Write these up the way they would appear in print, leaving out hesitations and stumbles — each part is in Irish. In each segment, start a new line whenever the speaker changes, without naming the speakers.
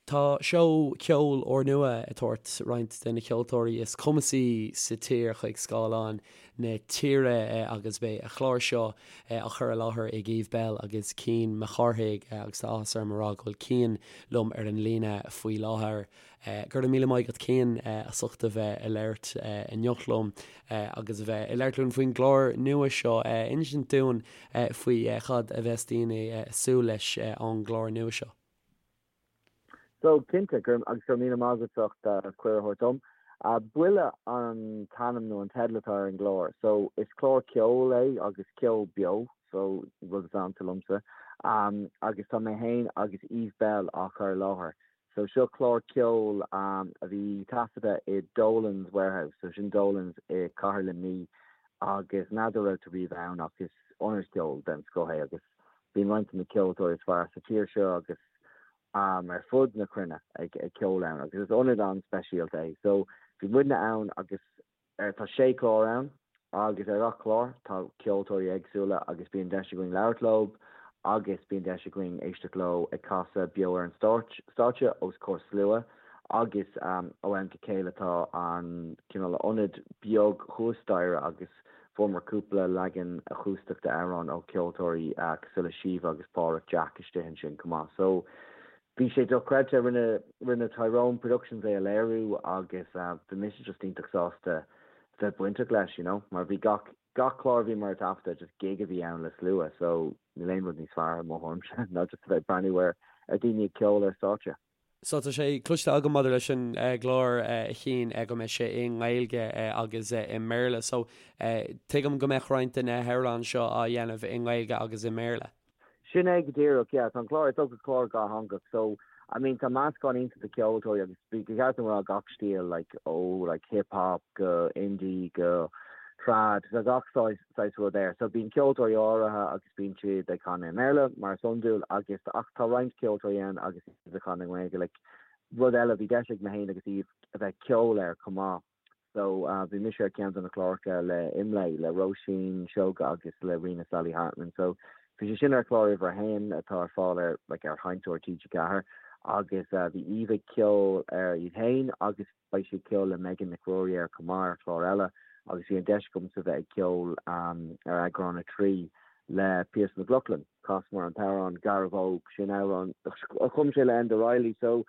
Tá seó ceoil úrnua ag tabhairt roinnt de na ceoltóirí is cumasaí sa tír chuig scáileáin na tíre agus beidh an clár seo á chur i láthair ag Eve Belle agus Cian Mac Cárthaigh agus tá áthas orm a rá go bhfuil Cian liom ar an líne faoi láthair. Go raibh míle maith agat Cian as ucht a bheith ag labhairt inniu liom agus a bheith ag labhairt linn faoin gclár nua seo. Insint dúinn faoi cad a bheas daoine ag súil leis ón gclár nua seo.
So, cinnte, go raibh, agus go raibh míle maith agat as ucht cuireadh a thabhairt dom. Buile an t-ainm nó an teideal atá ar an gclár. So, is clár ceoil é agus ceol beo, so, rud is ansa liomsa. Agus tá mé féin agus Eve Belle á chur i láthair. So, seo clár ceoil a bhí taifeadta i Dolan's Warehouse, so sin Dolan's i Cathair Luimnigh agus n'fheadar raibh tú riamh ann ach is ionad ceoil den scoth é agus Bíonn roinnt de na ceoltóirí is fearr sa tír seo agus ar fud na cruinne ag ceol ann agus is ionad an-speisialta é. So bhí muidne ann agus tá sé chlár ann agus ar gach clár tá ceoltóirí éagsúla agus bíonn deis againn labhairt leo agus bíonn deis againn éisteacht leo ag casadh beo ar an stáitse os comhair slua agus ó am go chéile tá an cineál ionad beag thuas staighre agus Fuaireamar cúpla leagan acústach d'amhráin ó cheoltóirí cosúil le Síomha agus Páraic Jack istigh ansin chomh maith. So, bhí sé dochreidte. Rinne, rinne Tyrone Productions é a léiriú agus bhí mise just iontach sásta bheith bainteach leis, you know, mar bhí gach, gach clár a bhíomar ag taifeadadh, just gig a bhí ann le slua, so níl aon rud níos fearr i mo thuairimse ná just a bheith ag breathnú ar, ar daoine ag ceol ar stáitse.
So tá sé cloiste agam maidir leis an gclár a Chiain go mbeidh sé i nGaeilge agus i mBéarla. So tuigim go mbeadh roinnt de na hamhráin seo á dhéanamh i nGaeilge agus i mBéarla.
Sin é go díreach, yeah. Tá an clár, is dócha clár dhátheangach. So, I mean, tá meascán iontach de cheoltóirí agus ba cheart dom a rá gach stíl, like, ó like hip hop go indie go trad, tá gach saghas rud air. So bíonn ceoltóirí áirithe agus bíonn siad ag canadh i mBéarla, mar is iondúil, agus ach tá roinnt ceoltóirí ann agus iad ag canadh i nGaeilge. Like, rud eile, bhí deis ag mé féin agus Eve a bheith ag ceol air chomh maith. So, bhí mise ar ceann de na cláracha le Imlé, le Róisín Seoige agus le Ríona Sally Hartman. So, bhí sé sin ar chlár uimhir a haon atá ar fáil ar, like, ar sheinnteoir TG4 agus bhí Eve ag ceol air í féin agus Beidh sí ag ceol le Megan Nic Ruairí air chomh maith ar chlár eile agus bhí an deis agamsa bheith ag ceol ar eagrán 3 le Pearse McLoughlin. Chasamar an t-amhrán Garbh Óg, sin amhrán a chum sé le Enda Reilly so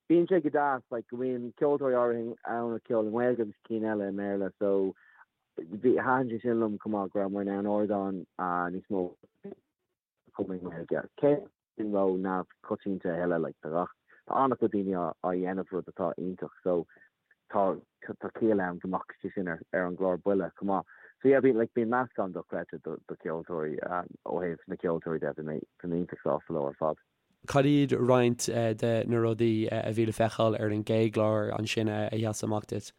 bíonn sé go deas like go mbíonn ceoltóirí áirithe ann ag ceol i nGaeilge agus cinn eile i mBéarla so bhí thaitin sé sin liom chomh maith go rabhamar in ann ardán níos mó chum i nGaeilge. Cé sin ró-neamhchoitianta a thuilleadh, like, tá gach, tá an-chuid daoine á, á dhéanamh, rud atá iontach, so tá, tá ciall ann go mbeadh sé sin ar, ar an gclár Buile chomh maith. So yeah, bíonn, like, bíonn meascán dochreidte do, do cheoltóirí, ó thaobh na ceoltóirí de, bhí mé, bhí mé iontach sásta leo ar fad.
Cad iad roinnt de na rudaí a bhí le feiceáil ar an gcéad chlár ansin a sheas amach duit?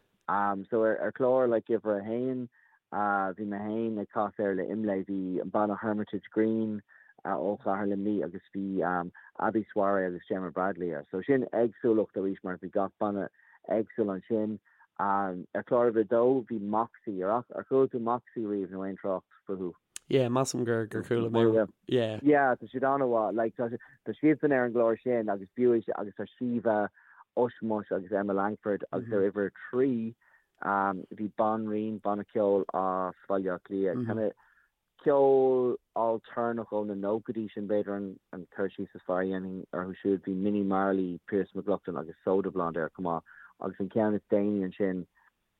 So ar, ar chlár, like, uimhir a haon, Bhí mé féin ag casadh air le Imlé, bhí an banna Hermitage Green ó Chathair Luimnigh agus bhí Abi Soiree agus Gemma Bradley air. So sin éagsúlacht arís mar bhí gach banna éagsúil ansin. Ar chlár uimhir a dó bhí Moxie, ar ar chuala tú Moxie riamh nó aon trácht fúthu?
Yeah, measaim gur gur chuala mé.
Yeah. Yeah, tá siad an-mhaith. Like, tá tá siadsan ar an gclár sin agus b'fhiú agus tá Síomha, Ushmush agus Emma Langford agus ar uimhir a 3 Bhí Banríon, banna ceoil as Baile Átha Cliath, kind of ceol ailtéarnach ó na nóchaidí, sin b'fhéidir an cur síos is fearr a dhéanfainn orthu siúd. Bhí Minnie Marley, Pearse McLoughlin agus Soda Blonde air chomh maith. Agus an ceann is déanaí ansin,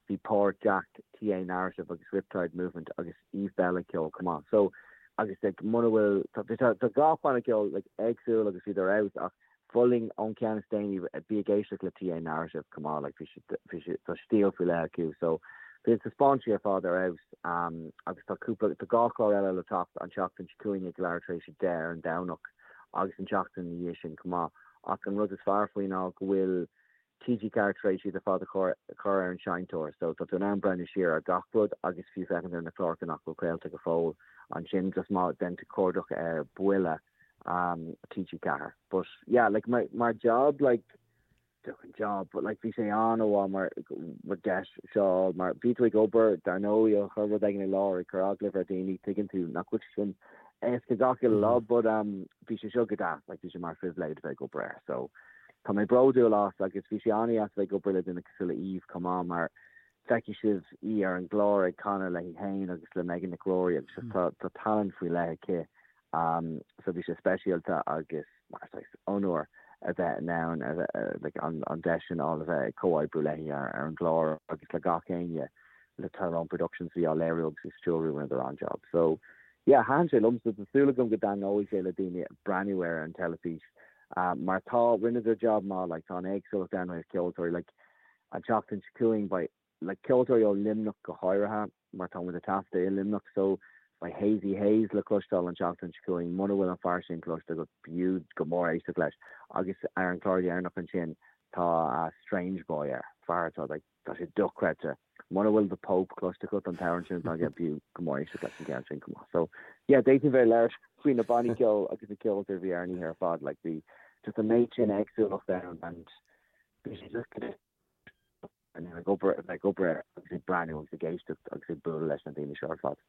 bhí Páraic Jack, TA Narrative agus Riptide Movement agus Eve Belle ag ceol chomh maith. So, agus like muna bhfuil, tá tá gach banna ceoil like éagsúil agus bhíodar ar fheabhas ach Mholfainn ón ceann is déanaí, bí ag éisteacht le TA Narrative chomh maith, like bhí siad, bhí siad, tá stíl faoi leith acu so bhí na taispeáintí ar fad ar fheabhas agus tá cúpla, tá dhá chlár eile le teacht an tseachtain seo chugainn ag leathuair tar éis 10 ar an Domhnach agus an tseachtain ina dhiaidh sin chomh maith ach an rud is fearr faoi ná go bhfuil TG4 tar éis iad ar fad a chur ar an seinnteoir so tá tú in ann breathnú siar ar gach rud agus fiú féachaint ar na cláracha nach bhfuil craolta go fóill ansin just má dhéanann tú cuardach ar Buile TG4. But yeah like mar mar job like an job but like bhí sé an-mhaith mar mar deis seo mar bhí tú ag obair dar ndóigh ag cur rud éigin i láthair ag cur agallamh ar daoine tuigeann tú nach bhfuil sé sin éasca gach uile lá but um bhí sé seo go deas like bhí sé mar phribhléid bheith ag obair air so. tá mé bródúil as agus bhí sé an-deas a bheith ag obair le duine cosúil le Eve chomh maith mar feicfidh sibh í ar an gclár ag canadh léi féin agus le Megan Nic Ruairí agus just tá tá tallann faoi leith aici um so bhí sé speisialta agus mar saghas onóir a bheith in ann a bheith like an an deis sin a fháil a bheith ag comhoibriú léi ar ar an gclár agus le gach éinne le Tyrone Productions a bhí á léiriú agus ag stiúrú rinneadar an-job so yeah thaitin sé liomsa tá súil agam go dtaitneoidh sé le daoine breathnú air ar an teilifís mar tá rinneadar job maith like tá an éagsúlacht ann ó thaobh ceoltóirí like an tseachtain seo chugainn beidh like ceoltóirí ó Luimneach go háirithe mar tá muid ag taifeadadh i Luimneach so beidh Hazy Hayes le cloisteáil an tseachtain seo chugainn muna bhfuil an fear sin cloiste agat b'fhiú go mór éisteacht leis agus ar an chlár dheireanach ansin tá Strange Boy air fear atá like Tá sé dochreidte. Muna bhfuil The Pope cloiste agat, an t-amhrán sin atá aige, b'fhiú go mór éisteacht leis an gceann sin chomh maith. So, yeah, d'fhéadfainn bheith ag labhairt faoi na bannaí ceoil agus na ceoltóirí a bhí ar an oíche ar fad, like bhí just an méid sin éagsúlacht ann and bhí sé just go ag obair, a bheith ag obair air agus ag breathnú agus ag éisteacht agus ag bualadh leis na daoine seo ar fad.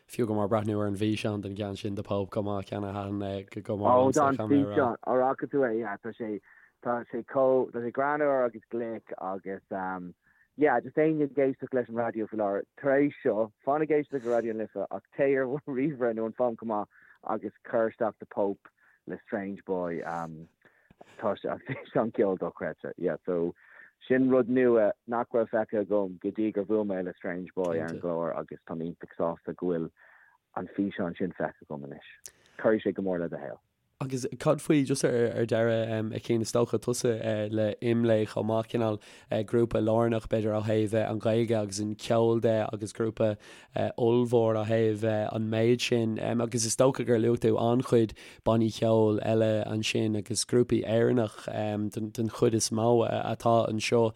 Fiú go mór breathnú ar an bhfíseán den gceann sin The Pope chomh maith, ceann a thaitin go mór
liomsa, caithfidh mé a rá. Ó, tá an físeán, an bhfaca tú é, yeah, tá sé, tá sé chomh, tá sé greannmhar agus glic agus um, yeah, just éinne ag éisteacht leis an raidió faoi láthair, tar éis seo, fan ag éisteacht le Raidió na Life ach téigh ar ríomhaire nó an fón chomh maith agus cuir isteach The Pope le Strange Boy, um, Tá sé an físeán ceoil dochreidte. Yeah, so sin rud nua nach raibh feicthe agam go dtí gur bhuail mé le Strange Boy ar an gclár agus tá mé iontach sásta go bhfuil an físeán sin feicthe agam anois. Cuirfidh sé go mór le do shaol.
Agus cad faoi, just ar deireadh, a Chian, is dócha tusa le IMLÉ chomh maith, cineál grúpa lárnach b'fhéidir ó thaobh an Ghaeilge agus an ceol de agus grúpa ollmhór ó thaobh an méid sin agus is dócha gur luaigh tú an-chuid bannaí ceoil eile ansin agus grúpaí Éireannach den chuid is mó atá anseo.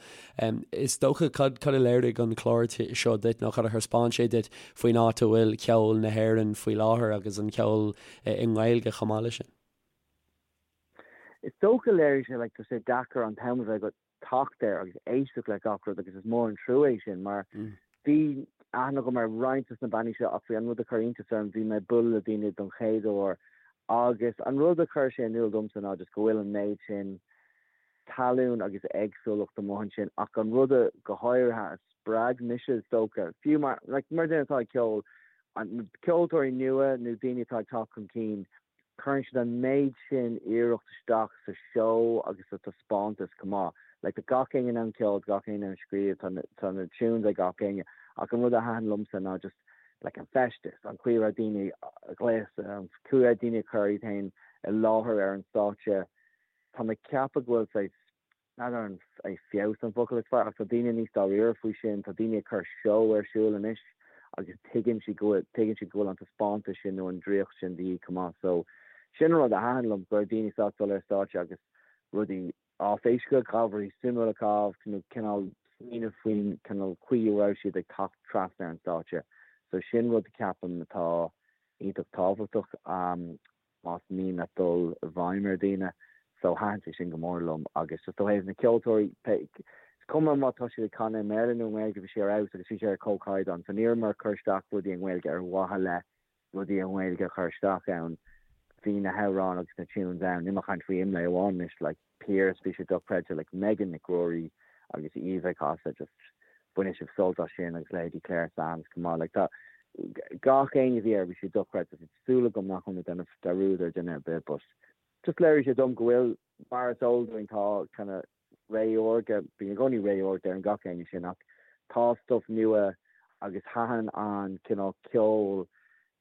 Is dócha cad cad a léirigh an clár seo duit nó cad a thaispeáin sé duit faoin áit a bhfuil ceol na hÉireann faoi láthair agus an ceol i nGaeilge chomh maith leis sin?
Is dócha léirigh sé like tá sé deacair an t-am a bheith agat teacht air agus éisteacht le gach rud agus is mór an trua é sin mar bhí aithne agam ar roinnt de na bannaí seo ach bhí an rud a chuir iontas orm bhí mé ag bualadh le daoine don chéad uair agus an rud a chuir sé in iúl domsa ná just go bhfuil an méid sin talún agus éagsúlacht amuigh ansin ach an rud a go háirithe a spreag mise is dócha fiú mar like mar duine atá ag ceol an ceoltóirí nua nó daoine atá ag teacht chun cinn Cuireann siad an méid sin iarracht isteach sa seó agus sa taispeántas chomh maith. Like tá gach éinne in ann ceol, tá gach éinne in ann scríobh, tá na, tá na tunes ag gach éinne. Ach an rud a thaitin liomsa ná just like an feisteas, an chaoi a raibh daoine gléasta, an chaoi a raibh daoine ag cur iad féin i láthair ar an stáitse. Tá mé ag ceapadh go bhfuil saghas N'fheadar an é feabhas an focal is fearr, ach tá daoine níos dáiríre faoi sin, tá daoine ag cur seó ar siúl anois agus tuigeann siad go bhfuil, tuigeann siad go bhfuil an taispeántas sin nó an draíocht sin de dhíth chomh maith. So, sin an rud a thaitin liom, go raibh daoine sásta dul ar stáitse agus rudaí áiféiseacha, rudaí suimiúla a chaitheamh nó cineál smaoineamh faoin cineál chaoi a raibh siad ag teacht trasna ar an stáitse. So, sin rud a ceapaim atá iontach tábhachtach. más mian leat dul i bhfeidhm ar dhaoine. So thaitin sé sin go mór liom agus just ó thaobh na ceoltóirí, is cuma má tá siad ag canadh i mBéarla nó i nGaeilge, bhí sé ar fheabhas agus bhí sé ar comhchaighdeán. So ní rabhamar ag cur isteach rudaí i nGaeilge ar mhaithe le rudaí i nGaeilge a chur isteach ann. Bhí na hamhráin agus na tunes ann. Níl mé ag caint faoi IMLÉ amháin anois, like Pearse, bhí sé dochreidte, like Megan Nic Ruairí agus Eve ag casadh, just bainfidh sibh sult as sin agus leithéidí Clare Sands chomh maith. Like tá gach éinne a bhí air, bhí sé dochreidte. Tá súil agam nach bhfuil mé ag déanamh dearúd ar dhuine ar bith but just léirigh sé dom go bhfuil, mar is eol dúinn, tá kind of ré órga, bíonn i gcónaí ré órga deireann gach éinne sin ach tá stuff nua agus thaitin an cineál ceol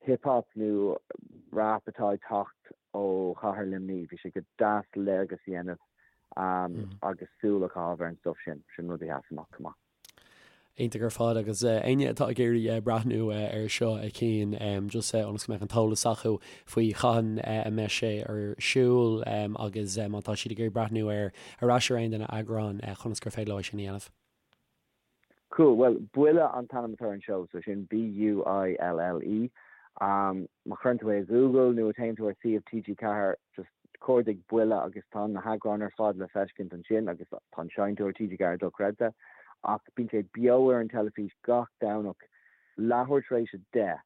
hip hop nó rap atá ag teacht ó chathair Luimnigh, bhí sé go deas léargas a dhéanamh agus súil a chaitheamh ar an stuff sin, sin rud a sheas amach chomh maith.
Iontach ar fad agus éinne atá ag iarraidh breathnú ar seo a Chian just ionas go mbeadh an t-eolas acu faoi cathain a mbeidh sé ar siúl agus má tá siad ag iarraidh breathnú ar ar ais ar aon de na heagráin conas gur féidir leo é sin a dhéanamh.
Cool, bhuel Buille an t-ainm atá ar an seó, so sin B-U-I-L-L-E. Má chuireann tú é i Google nó téann tú ar suíomh TG4, just cuardaigh Buille agus tá na heagráin ar fad le feiscint ansin agus tá an seinnteoir TG4 dochreidte. Ach bíonn sé beo ar an teilifís gach Domhnach leathuair tar éis 10.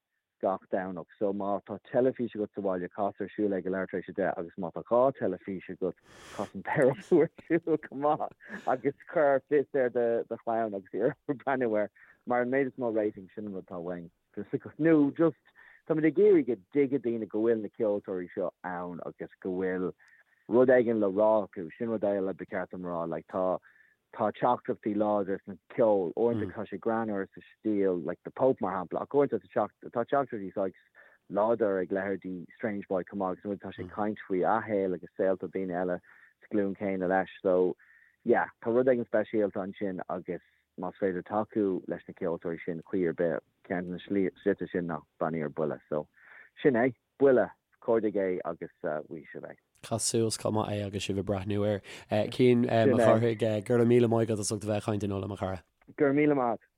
gach Domhnach so má tá teilifís agat sa bhaile cas ar siúl é ag leathuair tar éis 10 agus má tá 2 teilifís agat cas an dara ar siúl chomh maith agus cuir fios ar do do chlann agus iarr orthu breathnú air mar an méid is mó rating sin an rud atá uainn nó just táimid ag iarraidh go dtuigfidh daoine go bhfuil na ceoltóirí seo ann agus go bhfuil rud éigin le rá acu sin rud eile ba cheart dom rá like tá Tá teachtaireachtaí láidre sna ceol. Uaireanta tá sé greannmhar sa stíl, like The Pope mar shampla, ach uaireanta tá teachtaireachtaí saghas láidir ag leithéidí Strange Boy chomh maith agus uaireanta tá sé ag caint faoi a shaol agus saolta daoine eile sa ghlúin chéanna leis. So, yeah, tá rud éigin speisialta ansin agus más féidir tacú leis na ceoltóirí sin chaoi ar bith, ceann de na slite sin ná breathnaigh ar Buile. So, sin é. Buile, cuardaigh é agus gheobhaidh sibh é.
Cas suas chomh maith é agus sibh ag breathnú air. Cian Mac Cárthaigh, go raibh míle maith agat as ucht a bheith ag caint inniu liom, a chara.
Go raibh míle maith agat.